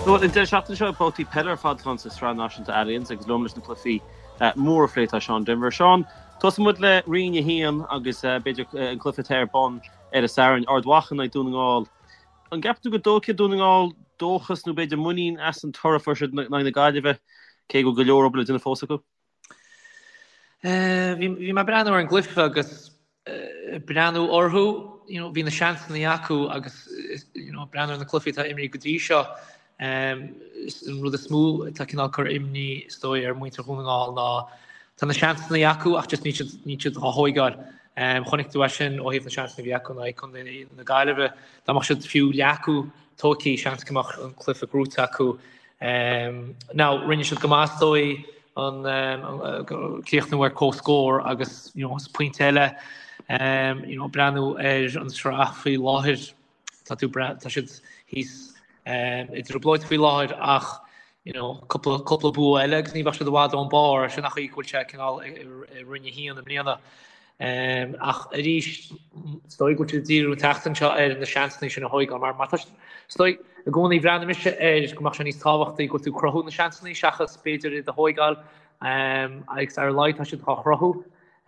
Bhuel, an deireadh seachtaine seo, babhtaí peile ar fad atá ann sa Sraith Náisiúnta Allianz agus liom leis na cluichí móra a phlé tá Seán Denvir. Seán, tosóidh muid le Roinn 1 agus b'fhéidir an cluiche atá ar bun ar an Satharn, Ard Mhacha in aghaidh Dún na nGall. An gceapann tú go dtógfaidh Dún na nGall dóchas nó b'fhéidir muinín as an toradh a fuair siad in aghaidh na Gaillimhe, cé go bhfuil go leor obair le déanamh fós acu? Bhí mé ag breathnú ar an gcluiche agus breathnú orthu, you know, bhí na seansanna acu agus you know, breathnú ar na cluichí atá imrithe go dtí seo, an rud is mó atá cineál cur imní is dóigh ar mhuintir Dhún na nGall ná tá na seansanna acu ach just níl siad, níl siad á thóigeáil. Chonaic tú é sin ó thaobh na seansanna a bhí acu in aghaidh Contae na Gaillimhe. Dá mbeadh siad fiú leath acu tógtha, seans go mbeadh an cluiche gnóite acu. Now, rinne siad go maith is dóigh an críochnú ar comhscór agus you know, is pointe eile you know, breathnú ar an sraith faoi láthair tá tú tá siad thíos i dtrioblóid faoi láthair ach you know, cúpla, cúpla bua eile agus ní bheadh siad i bhfad ón barr, sin an chaoi go bhfuil sé cineál i Roinn 1 i mbliana. Ach arís, is dóigh go bhfuil siad ag díriú an tseachtain seo ar na seansanna sin a thóigeáil mar mar tá is dóigh i gcónaí bhreathnaigh mise air go mbeadh sé níos tábhachtaí go bhfuil tú ag cruthú na seansanna seachas b'fhéidir iad a thóigeáil agus ar a laghad tá siad á chruthú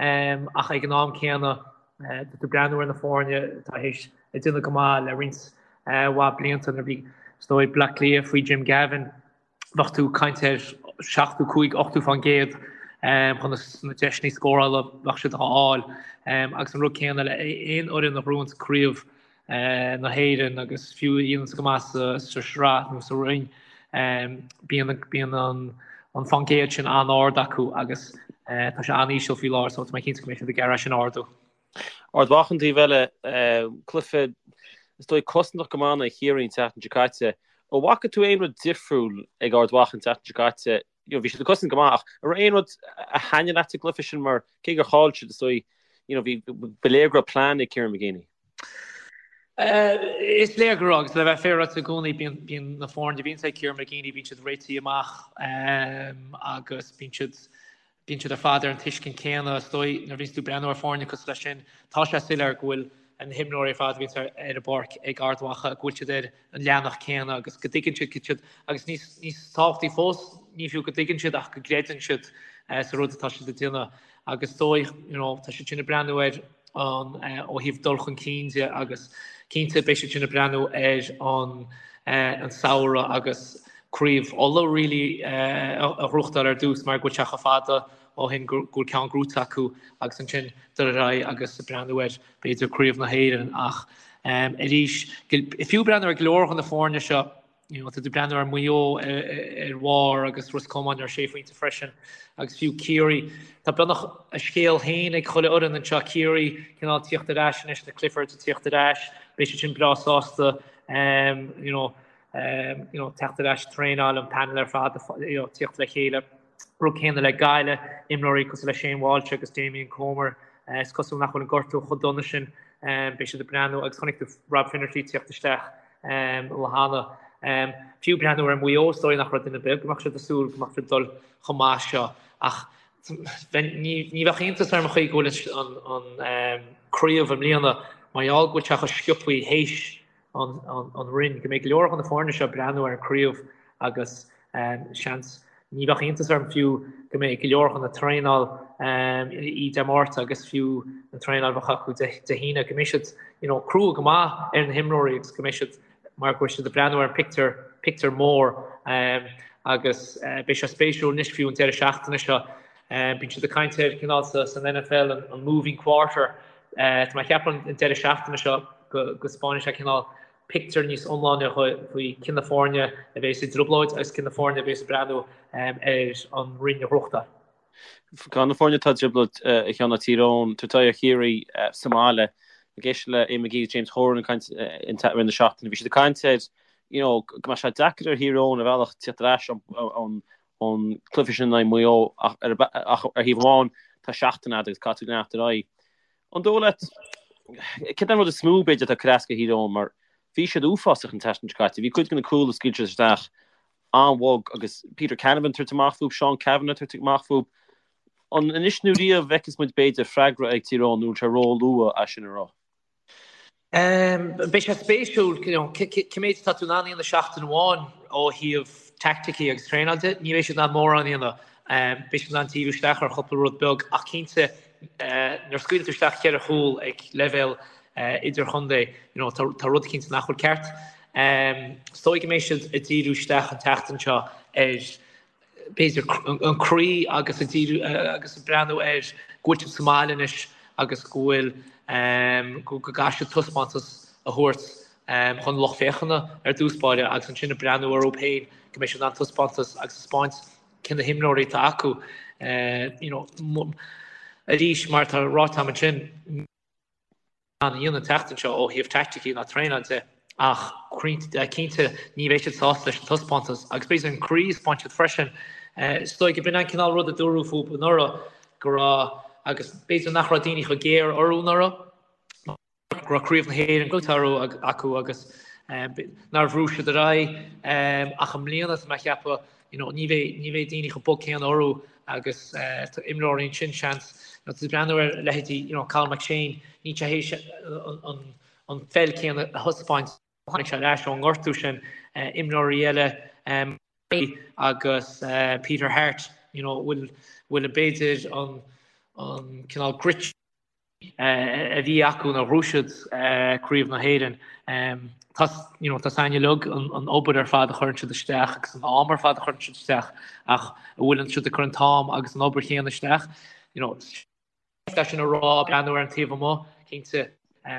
ach ag an am céanna tá tú ag breathnú ar na foirne atá théis ag déanamh go maith le roinnt mhaith blianta nuair a bhí is dóigh Bleá Cliath faoi Jim Gavin bheadh tú ag caint ar 75, 80% chun na deiseanna scórála bheadh siad á fháil. Agus an rud céanna le aon fhoireann a ghnóthaíonns craobh na hÉireann agus fiú a dhéananns go maith sa sraith nó sa roinn, bíonn bíonn an fán gcéad sin an-ard acu agus tá sé an-íseal faoi láthair so tá mé cinnte go mbeidh siad ag iarraidh sin a ardú. Ard Mhacha an taobh eile, cluiche is dóigh cosantach go maith in aghaidh Chiarraí an tseachtain seo caite. An bhfaca tú aon rud difriúil ag Ard Mhacha an tseachtain seo caite? You know, bhí siad ag cosaint go maith ach an raibh aon rud a thaitnigh leat sa gcluiche sin mar cé gur chaill siad is dóigh, you know, bhí ba léir go raibh plean ag Kieran McGeeney. Is léir go raibh agus le bheith féaráilte i gcónaí bíonn bíonn na foirne a bhíonns ag Kieran McGeeney bíonn siad réitithe amach agus bíonn siad Bíonn siad ar fad ar an tuiscint céanna, is dóigh, nuair a bhíonns tú ag breathnú ar foirne cosúil leis sin, tá sé soiléir go bhfuil na himreoirí ar fad a bhíonns ar an bpáirc ag Ard Mhacha, go bhfuil siad ar an leathanach céanna agus go dtuigeann siad cad siad, agus níos, níos tábhachtaí fós, ní fiú go dtuigeann siad ach go gcreideann siad sa rud atá siad ag déanamh. Agus is dóigh, you know, tá siad sin ag breathnú ar an, ó thaobh dul chun cinn de agus cinnte beidh siad sin ag breathnú ar an, an samhradh agus Craobh Uladh really a ghnóthachtáil ar dtús mar go bhfuil sé chomh fada ó shin go bhfuil ceann gnóite acu agus ansin dul ar aghaidh agus breathnú ar b'fhéidir Craobh na hÉireann ach arís fiú breathnú ar go leor de na foirne seo you know, tá tú breathnú ar Maigh Eo ar bharr agus Ros Comáin ar sé phointe freisin agus fiú Ciarraí. Tá beagnach a scéal féin ag chuile fhoireann anseo, Ciarraí cineál tíocht ar ais anois, na Cliffords ag tíocht ar ais, beidh siad sin breá sásta um, you know, um, you know, teacht ar ais traenáil an panel ar fad you know, tíocht le chéile. Rud céanna le Gaillimh, imreoirí cosúil le Shane Walsh agus Damien Comer, uh, is cosúil nach bhfuil an gortú chomh dona sin, um, beidh siad ag breathnú agus chonaic tú Rob Finnerty tíocht isteach um, lá cheana. Um, fiú breathnú ar Mhaigh Eo, is dóigh nach raibh duine ar bith go mbeadh siad ag súil go mbeadh siad ag dul chomh maith seo ach ní, ní bheadh iontas orm an chaoi go bhfuil an, an, an um, craobh i mbliana mar gheall go bhfuil sé chomh sciobtha théis an, an, an roinn, go mbeidh go leor de na foirne seo ag breathnú ar an craobh agus um, seans Ní bheadh iontas orm fiú go mbeidh go leor de na traenáil í Dé Máirt agus fiú an traenáil a bheadh acu Dé hAoine, go mbeidh siad you know crua go maith ar na himreoirí agus go mbeidh siad mar go bhfuil siad ag breathnú ar an pictiúr, pictiúr mór agus beidh sé spéisiúil anois fiú an deireadh seachtaine seo. Bíonn siad ag caint ar cineál san NFL an moving quarter. Tá mé ag ceapadh an deireadh seachtaine seo go go spáinfidh sé cineál pictiúr níos iomláine faoi cé na foirne a bheas i dtrioblóid agus cé na foirne a bheas ag breathnú ar an roinn a ghnóthachtáil. Ceann de na foirne atá i dtrioblóid a Sheáin ná Tír Eoghain, tabhairt aghaidh ar Chiarraí sa mbaile. Ag éisteacht le Eamon McGee agus James Horan ag caint i rith na seachtaine, bhí siad ag caint ar you know go mbeadh sé deacair ar Thír Eoghain ar bhealach tíocht ar ais ón cluiche sin in aghaidh Mhaigh Eo ach ar thaobh amháin tá seachtain agat agus caithfidh tú leanacht ar aghaidh. An dóigh leat, céard é an rud is mó, b'fhéidir, atá ag cur as do Thír Eoghain, mar bhí siad uafásach an tseachtain seo caite. Bhí cuid de na cúil a scaoil siad isteach an-bhog agus Peter Canavan ag tabhairt amach fúthu, Seán Cavanagh ag tabhairt amach fúthu. An anois nó riamh a bhfeicfeas muid, b'fhéidir, freagra ag Tír Eoghain nó an bhfuil sé ró-luath é sin a rá? Beidh sé spéisiúil, you know, cé méid atá tú in ann a dhéanamh seachtain amháin. ó thaobh teaicticí agus traenáil de, ní bheidh siad in ann mórán a dhéanamh. Beidh siad in ann díriú isteach ar chúpla rud beag ach cinnte nuair a scaoileann tú isteach cheithre chúl ag leibhéal idirchontae, you know, tá rud eicínt nach bhfuil ceart. Is dóigh go mbeidh siad ag díriú isteach an tseachtain seo ar b'fhéidir an croí agus ag díriú agus ag breathnú ar go bhfuil siad sa mbaile anois agus go bhfuil go gcaithfidh siad taispeántas a thabhairt chun lucht féachana ar dtús báire agus ansin ag breathnú orthu féin go mbeidh siad in ann taispeántas agus taispeáint cé na himreoirí atá acu. You know, arís mar atá ráite agam ansin, a dhéanamh an tseachtain seo ó thaobh teaicticí ná traenáil de ach cinnte ní bheidh siad sásta leis an taispeántas agus b'fhéidir an croí a thaispeáin siad freisin. Is dóigh go b'in an cineál rud a dúradh fúthu anuraidh go raibh agus b'fhéidir nach raibh daoine chomh géar orthu anuraidh go raibh Craobh na hÉireann gnóthaithe acu agus nár bhrú siad ar aghaidh ach i mbliana tá mé a cheapadh You know, ní bheidh, ní bheidh daoine chomh bog céanna orthu agus tá imreoirí ansin, seans, you know, tá tú ag breathnú ar leithéidí, you know, Cathal McShane, níl sé théis an, an, an pheil céanna a thaispeáint, tháinig sé ar ais ón ngortú sin, imreoirí eile, agus Peter Harte, you know, bhfuil, bhfuil b'fhéidir an, an cineál grit, a bhí acu nuair a ghnóthaigh siad Craobh na hÉireann. Tá you know, tá a fhios againn uilig an obair ar fad a chuireann siad isteach agus an am ar fad a chuireann siad isteach ach an bhfuileann siad ag cur an t-am agus an obair chéanna isteach? You know, é sin a rá, breathnú ar an taobh amuigh, cinnte,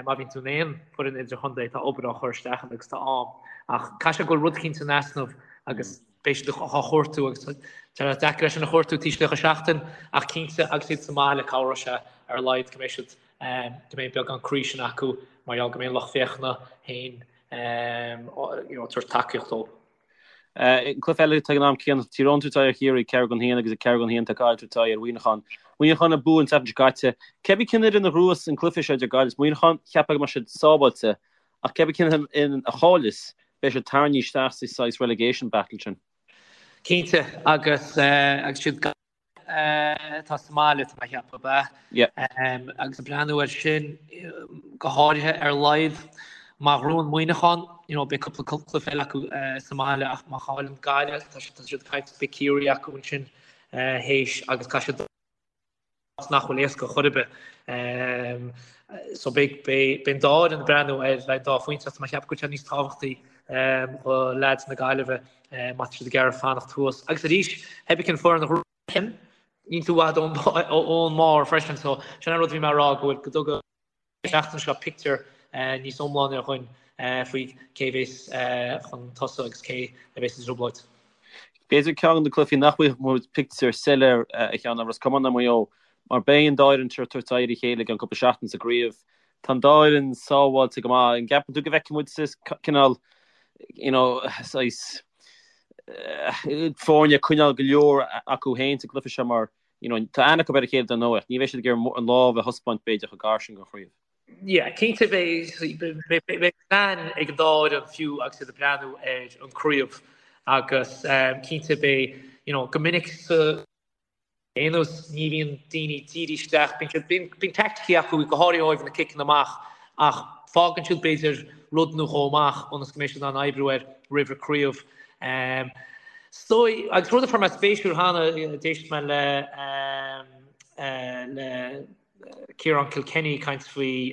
má bhíonn tú in aon foireann idirchontae tá obair á chur isteach ann agus tá am ach caithfidh sé go bhfuil rud eicínt in easnamh agus beidh siad á chuartú agus tá sé deacair é sin a chuartú taobh istigh de sheachtain ach cinnte agus iad sa mbaile cabhróidh sé ar a laghad go mbeidh siad go mbeidh beagán croí sin acu mar gheall go mbeidh an lucht féachana féin you know, tabhairt tacaíocht dóibh. An cluiche eile ag an am céanna, Tír Eoghain ag tabhairt aghaidh ar Chiarraí, 4 gan 1 agus ag 4 gan 1 tá Gaillimh ag tabhairt aghaidh ar Mhuineachán. Muineachán a bhuaigh an tseachtain seo caite. Cébí cén fhoireann a ghnóthós an cluiche seo idir Gaillimh is Muineachán, cheapfá go mbeadh siad sábháilte Ach cébí cén fhoireann a chailleas, beidh siad tarraingthe isteach sa saghas relegation battle sin. Cinnte, agus agus siad Gaillimh atá sa mbaile, tá mé a cheapadh, ab ea? Yeah. Agus ag breathnú air sin, go háirithe ar a laghad, má ghnóthaíonn Muineachán, you know, beidh cúpla cluiche eile acu sa mbaile ach má chailleann Gaillimh, tá siad ag caint, beidh Ciarraí acu ansin théis agus caithfidh siad nach bhfuil éasca chor ar bith. So beidh beidh an dá fhoireann ag breathnú ar an dá phointe ach tá mé ag ceapadh go bhfuil sé níos tábhachtaí do leaids na Gaillimhe má tá siad ag iarraidh fanacht thuas. Agus arís, cébí cén foireann a ghnóthaíonn, níl tú i bhfad ón mbarr freisin so sin an rud a bhí mé a rá go bhfuil go dtuga seachtain seo pictiúr níos iomláine dhúinn faoi cé a bheas chun tosaigh agus cé a bheas i dtrioblóid. B'fhéidir ceann de na cluichí nach bhfaighidh muid pictiúr soiléir a Sheáin ná Ros Comáin Maigh Eo mar beidh an dá fhoireann seo ag tabhairt aghaidh ar a chéile i gceann cúpla seachtain sa gcraobh. Tá an dá fhoireann sábháilte go maith. An gceapann tú go bhfeicfidh muid cineál you know saghas foirne ag coinneáil go leor acu féin sa gcluiche seo mar You know, tá aithne acu ar a chéile dar ndóigh, ach ní bheidh siad ag iarraidh an lámh a thaispeáint b'fhéidir chomh gar sin don chraobh. Yeah, cinnte beidh beidh plean ag an dá fhoireann fiú agus iad ag breathnú ar an craobh agus cinnte beidh, you know, go minic sa aon nós ní bhíonn daoine dírithe isteach, bíonn siad, bíonn, bíonn teaicticí acu go háirithe ó thaobh na ciceanna amach ach fágann siad b'fhéidir rud nó dhó amach ionas go mbeidh siad in ann oibriú air roimh an craobh. Is dóigh, agus rud a fuair mé spéisiúil cheana, d'éist mé le le Ciarán Kilkenny ag caint faoi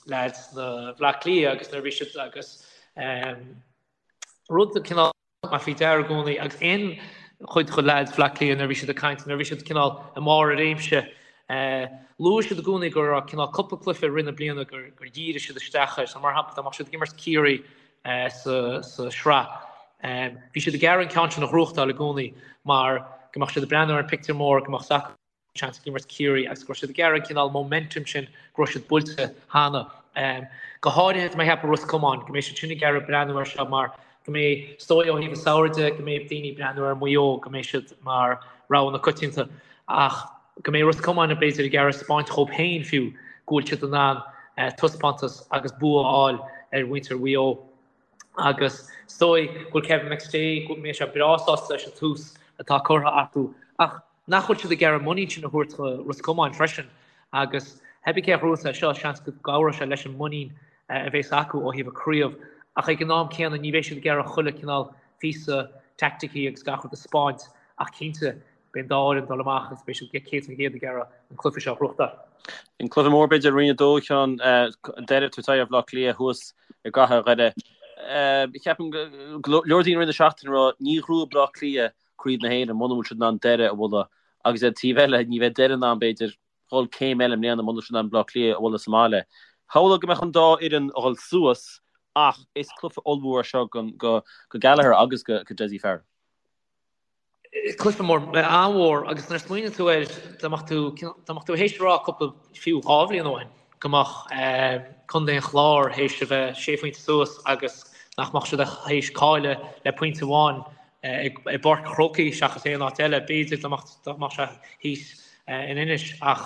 leaids na Bhleá Cliath agus nuair a bhí siad agus rud cineál mé faoi deara i gcónaí agus aon chuid de leaids Bhleá Cliath nuair a bhí siad ag caint, nuair a bhí siad cineál i mbarr a réimse, luaigh siad i gcónaí go raibh cineál cúpla cluiche i rith na bliana gur dhírigh siad isteach air. So mar shampla dá mbeadh siad ag imirt Ciarraí sa sraith. Bhí siad ag iarraidh an ceann sin a ghnóthachtáil i gcónaí mar go mbeadh siad ag breathnú ar an pictiúr mór, go mbeadh a fhios acu seans ag imirt Ciarraí agus go raibh siad ag iarraidh an cineál momentum sin go raibh siad buailte cheana. Go háirithe tá mé ag ceapadh Ros Comáin, go mbeidh siad sin ag iarraidh breathnú air seo mar go mbeidh, is dóigh ó thaobh an samhraidh de, go mbeidh daoine ag breathnú ar Mhaigh Eo, go mbeidh siad mar rogha na coitianta ach go mbeidh Ros Comáin b'fhéidir ag iarraidh spáint dhóibh féin fiú go bhfuil siad in ann taispeántas agus bua a fháil ar mhuintir Mhaigh Eo agus is dóigh go bhfuil Kevin McStay, go mbeidh sé breá sásta leis an tús atá curtha acu ach nach bhfuil siad ag iarraidh muinín sin a thabhairt do Ros Comáin freisin agus cébí cé a ghnóthós é seo, seans go gcabhróidh sé leis an muinín a bheas acu ó thaobh an craobh ach ag an am céanna ní bheidh siad ag iarraidh chuile cineál. Píosa teaicticí agus gach rud a 'spáint ach cinnte beidh an dá fhoireann ag dul amach agus beidh siad 100% ag iarraidh an cluiche seo a ghnóthachtáil. An cluiche mór b'fhéidir Roinn 2 Sheáin, Doire ag tabhairt aghaidh ar Bhaile Átha Cliath thuas i gcathair Dhoire. Ceapaim go leor daoine i rith na seachtaine ag rá ní ghnóthóidh Baile Átha Cliath Craobh na hÉireann muna bhfuil siad in ann Doire a bhualadh agus ar an taobh eile ní bheidh Doire in ann b'fhéidir dhul céim eile i mbliana muna bhfuil siad in ann Baile Átha Cliath a bhualadh sa mbaile. Shamhlófá go mbeadh an dá fhoireann a dhul suas ach is cluiche ollmhór é seo go Gallagher agus go Dessie Farrell. Cluiche mór, an-mhór agus nuair a smaoiníonn tú air, dá mbeadh tú, dá mbeadh tú théis a rá cúpla, fiú 2 bhliain ó shin, go mbeadh Contae an Chláir théis a bheith sé phointe suas agus nach mbeadh siad théis cailleadh le pointe amháin i bPáirc an Chrócaigh seachas aon áit eile, b'fhéidir dá mbeadh sé thíos in Inis ach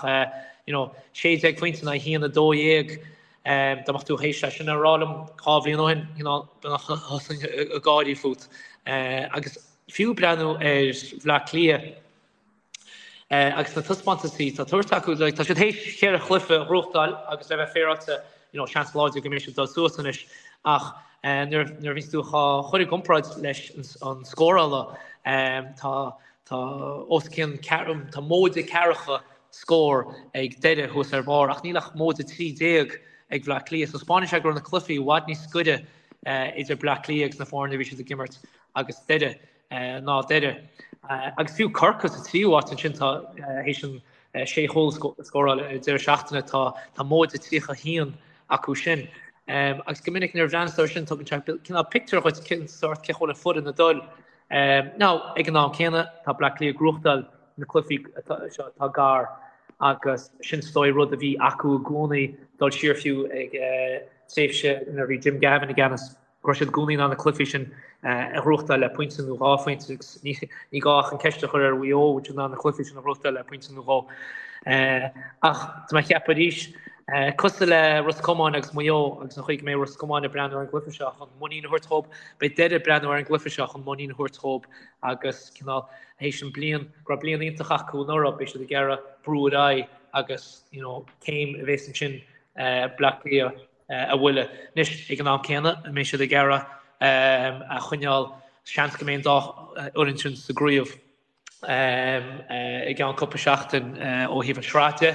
you know 16 phointe in aghaidh 1-12 dá mbeadh tú théis é sin a rá liom 2 bhliain ó shin you know thosóinn ag gáirí fút. Agus fiú breathnú ar Bhleá Cliath Agus na taispeántaisí atá tabhairt acu, like, tá siad théis cheithre chluiche a ghnóthachtáil agus le bheith féaráilte, you know, seans láidir go mbeidh siad ag dul suas anois. Ach nuair nuair a bhíonns tú á chur i gcomparáid leis an scórála, tá tá os cionn ceathrú, tá móide ceathracha scór ag Doire thuas ar barr ach níl ach móide 13 ag Bleá Cliath. So 'spáineann sé go raibh na cluichí i bhfad níos gaire idir Bleá Cliath agus na foirne a bhí siad ag imirt agus Doire. ná Doire. Agus fiú Corcaigh sa tríú háit ansin tá théis an sé chúl a scóráil ar deireadh seachtaine tá tá móide 31 acu sin. Agus go minic nuair a bhreathnaíonn tú air sin tugann sé cineál pictiúr dhuit cén sórt cén chaoi a bhfuil an foireann ag dul. Now ag an am céanna tá Bleá Cliath ag gnóthachtáil na cluichí seo atá gar agus sin is dóigh rud a bhí acu i gcónaí dul siar fiú ag tréimhse nuair a bhí Jim Gavin i gceannas. go raibh siad i gcónaí in ann na cluichí sin a ghnóthachtáil le pointe nó 2 phointe agus ní gá ach an ceist a chur ar Mhaigh Eo an bhfuil siad in ann na cluichí sin a ghnóthachtáil le pointe nó dhó. Ach tá mé ag ceapadh arís, cosúil le Ros Comáin agus Maigh Eo agus an chaoi go mbeidh Ros Comáin ag breathnú ar an gcluiche seo chun muinín a thabhairt dhóibh, beidh Doire ag breathnú ar an gcluiche seo chun muinín a thabhairt dhóibh agus cineál théis an bliain, go raibh bliain iontach acu anuraidh, beidh siad ag iarraidh brú ar aghaidh agus you know céim a bhéas ansin Bleá Cliath. a bhualadh. Anois, ag an am céanna, an mbeidh siad ag iarraidh a choinneáil, seans go mbeidh an dá fhoireann sin sa gcraobh i gceann cúpla seachtain ó thaobh an sraith de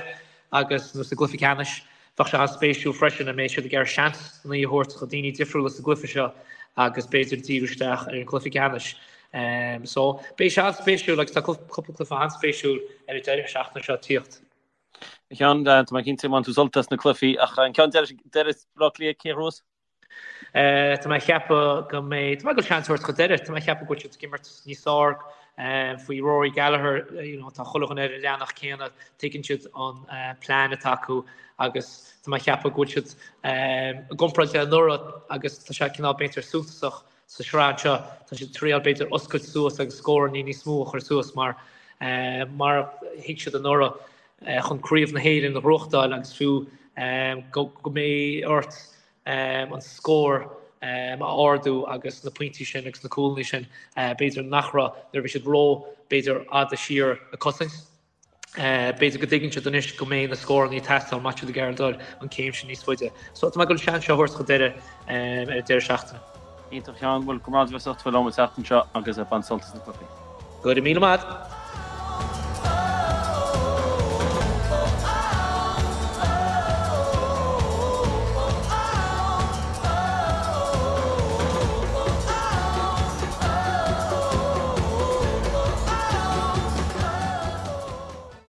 agus nó sa gcluiche ceannais. Bheadh sé an-spéisiúil freisin an mbeidh siad ag iarraidh seans a thabhairt do daoine difriúla sa gcluiche seo agus b'fhéidir díriú isteach ar an gcluiche ceannais. So, beidh sé an-spéisiúil agus tá cúpla cluiche an-spéisiúil ar an deireadh seachtaine seo ag tíocht. A Sheáin, tá mé cinnte go mbainfidh tú sult as na cluichí ach an ceann deiridh, Doire Bleá Cliath, cé a ghnóthós? Tá mé ag ceapadh go mbeidh, tá mé ag dul seans a thabhairt do Dhoire, tá mé ag ceapadh go bhfuil siad ag imirt níos fearr faoi Rory Gallagher, you know, tá chuile dhuine ar an leathanach céanna, tuigeann siad an plean atá acu agus tá mé ag ceapadh go bhfuil siad i gcomparáid le anuraidh agus tá sé cineál b'fhéidir suntasach Sa sraith anseo, tá siad ag triail b'fhéidir oscailt suas agus scóranna níos mó a chur suas mar mar a thuig siad anuraidh chun Craobh na hÉireann a ghnóthachtáil agus fiú go mbeidh ort an scór a ardú agus na pointí sin agus na cúlanna sin b'fhéidir nach raibh nuair a bhí siad ró b'fhéidir fhada siar ag cosaint. B'fhéidir go dtuigeann siad anois go mbeidh na scóranna ag teastáil má tá siad ag iarraidh dul an céim sin níos faide. So tá mé ag dul an seans seo a thabhairt do Dhoire ar an deireadh seachtaine. Iontach a Sheáin, bhuel go raibh maith agat as ucht a bheith liom an tseachtain seo agus bain sult as na cluichí. Go raibh míle maith agat.